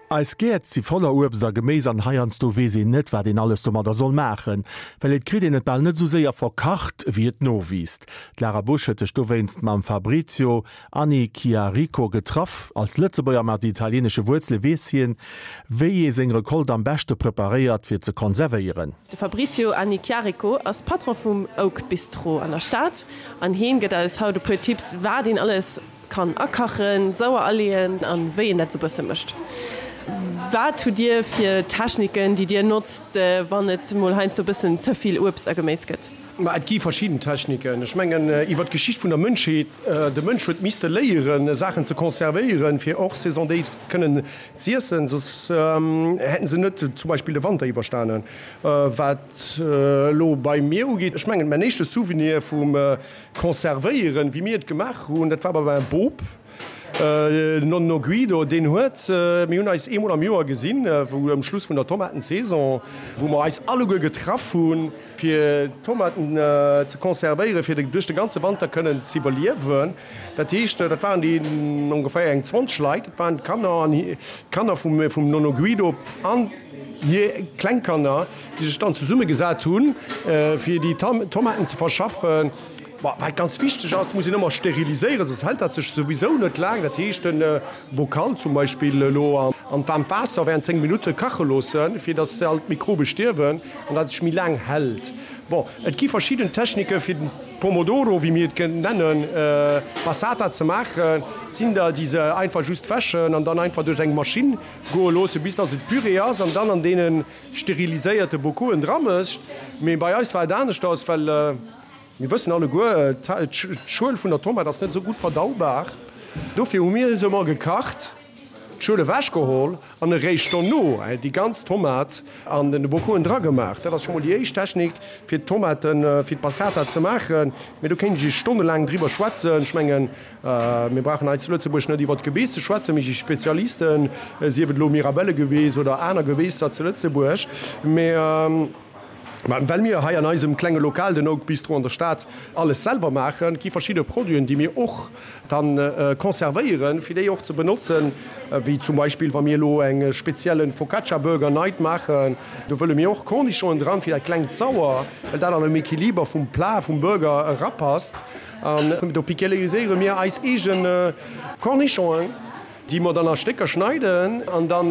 Eis Gäert si voller Uebst a Geméis an heiansdo weess een net, wat een alles domadder soll maachen, well et kritt een et bal net esou séier verkacht, wéi et nowiisst. D'Lara Busch huet sech dowéinst mam Fabrizio Annichiarico getraff. Als Lëtzebuerger mat italieenesche Wuerzele weess hien, wéi ee seng Recolte am beschte preparéiert, fir ze konservéieren. De Fabrizio Annichiarico ass Patron vum Oak Bistro an der Stad an hien gëtt eis haut e puer Tipps, wat een alles Kann akachen, sauer aleeën an wéi een dat sou bësse mécht. Wat hutt dir fir Techniken déi dir notzt wann et mol heiansdo bëssen ze vill Uebst a Geméis gëtt? Ma et gi verschidden Techniken. Ech mengen iwwer d'Geschicht vun der Mënschheet, de Mënsch huet misste léieren Saachen ze conservéieren fir hors saison déi kënnen z'iessen, soss hätten se net zum Beispill de Wanter iwwerstanen. Wat elo bei mir ugeet, ech mengen mäin éischte Souvenir vum Conservéieren, wéi mir et gemaach hunn, dat war bei mäi Bop, den Nonno Guido, deen huet, mir hunn eis eemol am Joer gesinn, wou um Schluss vun der Tomatensaison, wou mer eis alleguer getraff hunn, fir d'Tomaten ze conservéieren, fir duerch de ganze Wanter kënnen z'iwwerliewen. Dat heescht, dat waren déi ongeféier eng 20 Leit, dat waren d'Kanner an d'Kanner vum Nonno Guido an hir Klengkanner. déi sech dann zesumme gesat hunn, fir déi Tomaten ze verschaffen. Wat ganz wichteg ass, muss een ëmmer steriliséieren, soss hält dat sech souwisou net laang. Dat heescht, de Bocal zum Beispill elo an d'waarmt Waasser während 10 Minutte kache loossen, fir datt all d'Mikrobe stierwen an dat sech méi laang hält. Bon, et gi verschidden Technike fir den Pomodoro, wéi mir et nennen, Passata ze maachen. Et sinn der, déi se einfach just wäschen an dann einfach duerch eng Maschinn goe loossen, bis datt et Püree ass an dann an deene steriliséierte Bokoen dra mécht. Mee bei eis war et aneschters, well mir wëssen alleguer, d'Schuel vun der Tomat ass net esou gutt verdaubar. Dofir hu mir se emol gekacht, d'Schuel ewechgeholl an eréischt dono déi ganz Tomat an de Bokoen dragemaach. Dat ass scho mol déi éischt Technik, fir d'Tomaten, fir d'Passata ze maachen. Mee do kéint ech Iech stonnelaang driwwer schwätzen. Ech mengen, Mir brauchen hei zu Lëtzebuerg net iwwert d'Gebeess ze schwätzen, mir si Spezialisten, sief et elo Mirabellegebeess oder aner Gebeesser zu Lëtzebuerg. Mee well mir hei an eisem klenge Lokal, den Oak Bistro an der Stad, alles selwer maachen, gi verschidde Produiten, déi mir och dann conservéieren, fir déi och ze benotzen, wéi zum Beispill wa mir elo eng spezielle Focaccia Burger Night maachen, do wëlle mir och Cornichonen dran, fir dat klengt Sauer, well dat an dem Equiliber vum Plat, vum Burger erapasst. An do pikéliséiere mir eis eege Cornichonen, déi mer dann a Stécker schneiden an dann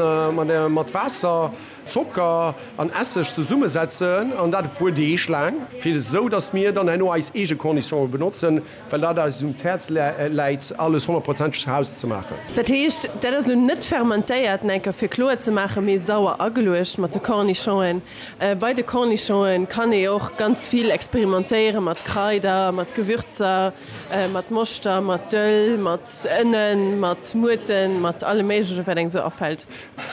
mat Waasser, Zocker an Esseg zesummesetzen an dat e puer Deeg laang, fir esou dass mir dann herno eis eege Cornichonen benotzen, well dat eis um d'Häerz läit, alles honnertprozenteg zu Haus ze maachen. Dat heescht, dat ass elo net fermentéiert, enker fir kloer ze maachen, mee sauer ageluecht mat de Cornichonen. Bei de Cornichonen kann ee och ganz vill experimentéieren mat Kraider, mat Gewürzer, mat Moschter, mat Dëll, mat Ënnen, mat Muerten, mat allem méiglechen wat engem sou afält.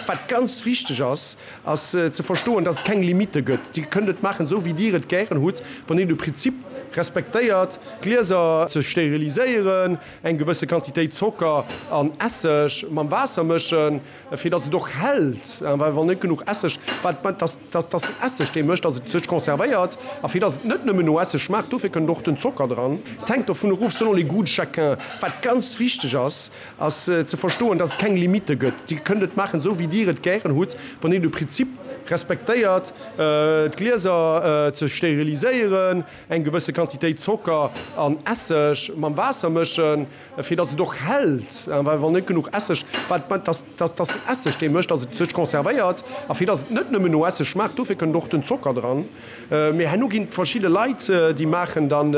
Wat ganz wichteg ass, ass ze verstoen, dass et keng Limitte gëtt. Dir kënnt et maachen, esou wéi Dir et gären hutt, wann Dir de Prinzip respektéiert, d'Glieser ze steriliséieren, eng gewësse Quantitéit Zocker an Esseg mam Waasser mëschen, Fir dass et och hält, well wann net genuch Esseg, wat dass dass den Esseg dee mécht, dass et sech conservéiert, a fir dass et net nëmmen no Esseg schmaacht, dofir kënnt och den Zocker dran. Et hänkt dovun erof, selon les goûts de chacun. Wat ganz wichteg ass, ass ze verstoen, dass et keng Limitte gëtt. Dir kënnt et maachen, esou wéi Dir et gären hutt, wann Dir de Prinzip respektéiert, d'Glieser ze steriliséieren, eng gewësse Quantitéit Zocker an Esseg mam Waasser mëschen, Fir dass et och hält, well wann net genuch Esseg, wat dass dass den Esseg dee mécht, dass et sech conservéiert, a fir dass et net nëmmen no Esseg schmaacht, dofir kënnt och den Zocker dran. Mee herno ginn et verschidde Leit, déi maachen dann,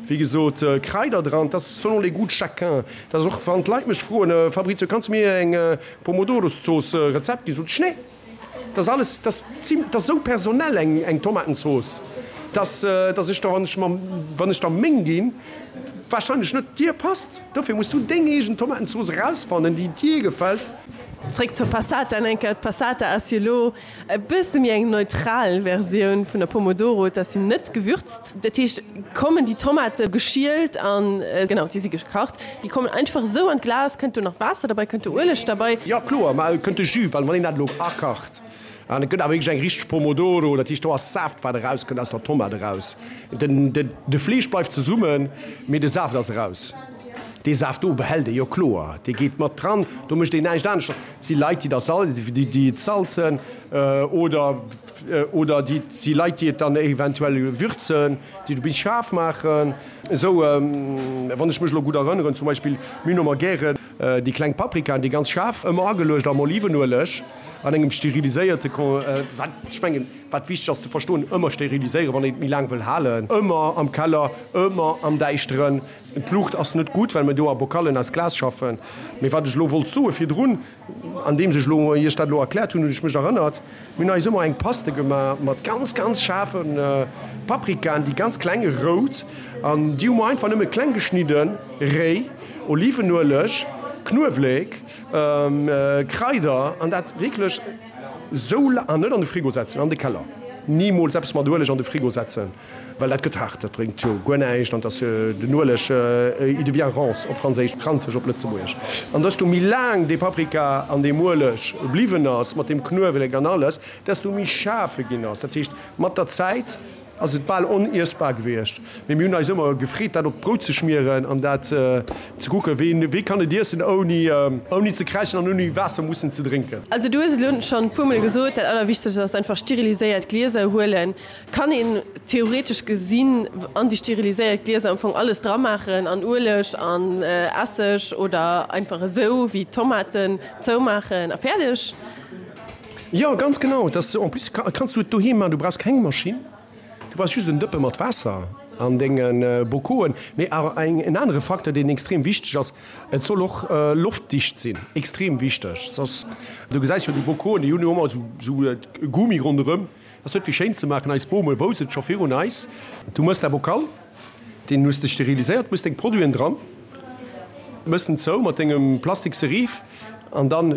wéi gesot, Kraider dran. Dat ass selon les goûts de chacun. Dat ass och, wann d'Leit mech froen, Fabrizio, kanns de mir eng Pomodorozooss Rezept ginn, sot ech, nee. Dat ass alles, dat ass zim, dat ass esou personell eng, eng Tomatenzooss, dass, dass ech der, wann ech mam, wann ech der meng ginn, wahrscheinlech net dir passt. Dofir muss du deng eegen Tomatenzooss erausfannen, déi dir gefält. Zréck zur Passata en Enker. D'Passata ass jo elo e bësse méi eng neutral Versioun vun der Pomodoro. Et ass jo net gewürzt. Dat heescht, kommen déi Tomate geschielt an, genau, déi si gekacht, déi kommen einfach esou an d'Glas. Kënnt do nach Waasser derbei? Kënnt do Ueleg derbei? Jo kloer, ma et kënnt de Jus, well wann een dat elo akacht, an et gëtt awer wierklech eng richteg Pomodoro, dat heescht do ass Saaft wat erauskënnt aus der Tomat eraus. Den de Fleesch bleift zesummen, mee de Saaft ass eraus. Dee Saaft do behält ee jo kloer, dee geet mat dran, do mécht een näischt aneschters. Et si Leit, déi da sal, déi et salzen oder, oder déi, et si Leit, déi et dann eventuell würzen, déi et e bis schaarf maachen. Esou, wann ech mech elo gutt erënneren, zum Beispill, mir hunn ëmmer gären déi kleng Paprikaen, déi ganz schaarf, ëmmer ageluecht am Olivenueleg an engem steriliséierte Kon, wat, ech mengen, wat wichteg ass ze verstoen, ëmmer steriliséieren, wann een et méi laang wëll halen, ëmmer am Keller, ëmmer am Däischteren. D'Luucht ass net gutt, well mir do a Bokallen aus Glas schaffen. Mee wat ech elo wollt soe virdrun, andeems ech elo Iech dat elo erkläert hunn, hunn ech mech erënnert, Mir hunn eis ëmmer eng Paste gemaach mat ganz, ganz schaarfe Paprikaen, déi ganz kleng, rout, an déi hu mer einfach nëmme kleng geschnidden, réi, Olivenueleg, Knuewléck, Kraider an dat wierklech esou la-, an net an de Frigo setzen, an de Keller, nimools eppes mat Ueleg an de Frigo setzen. Well dat gëtt haart, dat bréngt jo guer näischt an dass den Ueleg, il devient rance op Franséisch, ranzeg op Lëtzebuergesch. An desto méi laang dee Paprika an deem Ueleg bliwwen ass, mat deem Knuewelek an alles, desto méi schaarf e ginn ass. Dat heescht, mat der Zäit ass et bal oniessbar gewiescht. Mee mir hunn eis ëmmer gefreet, dat op d'Brout ze schmieren an dat ze kucken, ween, wee kann et iessen, ouni, ouni ze kräischen an ouni Waasser mussen ze drénken. Also du hues et elo schonn e puermol gesot, dat Allerwichtegst ass einfach steriliséiert Glieser huelen. Kann een theoretesch gesinn an déi steriliséiert Glieser am Fong alles dra maachen, an Ueleg an Esseg oder einfach esou wéi Tomaten zoumaachen a fäerdeg? Jo, ganz genau. Et ass en plus kanns du et doheem maachen, du brauchs keng Maschinn, du brauchs just en Dëppe mat Waasser an denge Bokoen. Mee awer en anere Facteur, deen extrem wichteg ass, Et soll och loftdicht sinn, extrem wichteg, soss, du gesäis jo déi Bokoen, déi hunn jo ëmmer esou e Gummi ronderëm. Ass net fir schéin ze maachen, eis Bome wousst et scho virun eis. Du mëss däi Bokal, deen hues de steriliséiert, mëss deng Produiten dran, mëss en zou mat dengem plastikse Riif an dann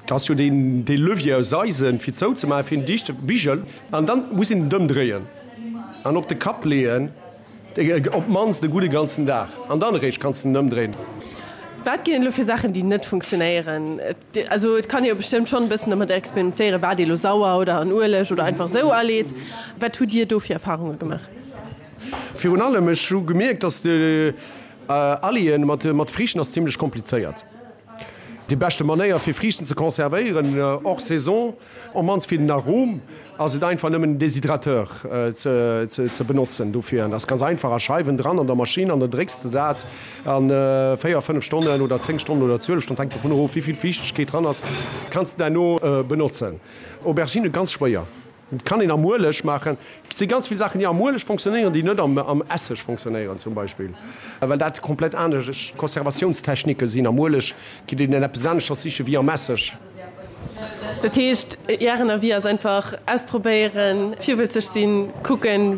ass jo deen dee Levier aus Eisen fir zou ze maachen, fir en dichte Bigel an dann muss een en ëmdréien an op de Kapp leeën. Op d'mannst e gudde ganzen Dag an dann eréischt kanns de en ëmdréinen. Wat ginn et elo fir Saachen, déi net funktionéieren? Also et kann ee jo bestëmmt schonn e bëssen domat experimentéieren, wat ee lo sauer oder an Ueleg oder einfach esou aleet. Wat hutt Dir do fir Erfarunge gemaach? Virun allem, ech hu gemierkt, dass de Aleeë mat Friichten ass zimlech komplizéiert. Déi beschte Manéier fir Friichten ze conservéieren hors saison, Op mannst fir den Arom ass et einfach nëmmen en Déshydrateur ze benotzen dofir. An ass ganz einfach, a Scheiwen dran an der Maschinn an dann drécks de dat an 4, 5 Stonnen oder 10 Stonnen oder 12 Stonnen, hänkt dovun erof wéivill Fiichtegkeet dran ass, kanns de derno benotzen. Aubergine ganz schwéier, kann een am Ueleg maachen. Et si ganz vill Saachen déi am Ueleg fonctionnéieren, déi net am Esseg fonctionnéieren zum Beispill, well dat komplett anescht Conservatiounstechnike sinn. Am Ueleg geet een eppes aneschters siche wéi am Esseg. Dat heescht, Ären Avis ass einfach ausprobéieren, virwëtzeg sinn, kucken,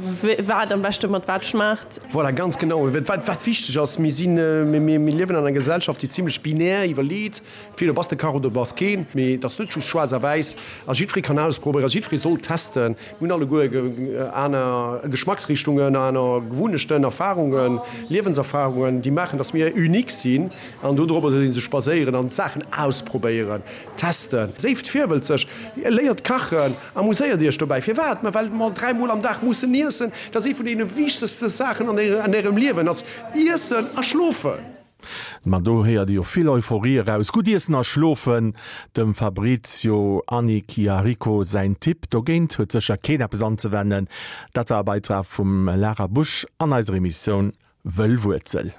wat am beschte mat wat schmaacht. Voilà, ganz genau. Wat, wat wichteg ass, mir sinn, mir, mir liewen an enger Gesellschaft, déi zimlech binär iwwerleet, entweder bass de Kach oder bass keen. Mee et ass net just schwaarz a wäiss a jiddweree kann ausprobéieren, jiddweree soll testen. Mir hunn alleguer aner Geschmacksrichtungen, aner Gewunnechten, Erfarungen, Liewenserfarungen, déi maachen, dass mir unique sinn. An dodropper soll ee sech baséieren an d'Saachen ausprobéieren, testen. Séift virwëlzeg, léiert kachen, amuséiert iech dobäi. Firwat? Ma well mer 3 mol am Dag mussen iessen. Dat ass ee vun deene wichtegste Saachen an ärem Liewen ass iessen a schlofen. Ma do héiert ee jo vill Euphorie eraus. Gutt iessen a schlofen, dem Fabrizio Annichiarico säin Tipp. Dogéint huet sécher keen eppes anzewennen. Dat war e Beitrag vum Lara Busch an eiser Emissioun Wëll Wuerzel.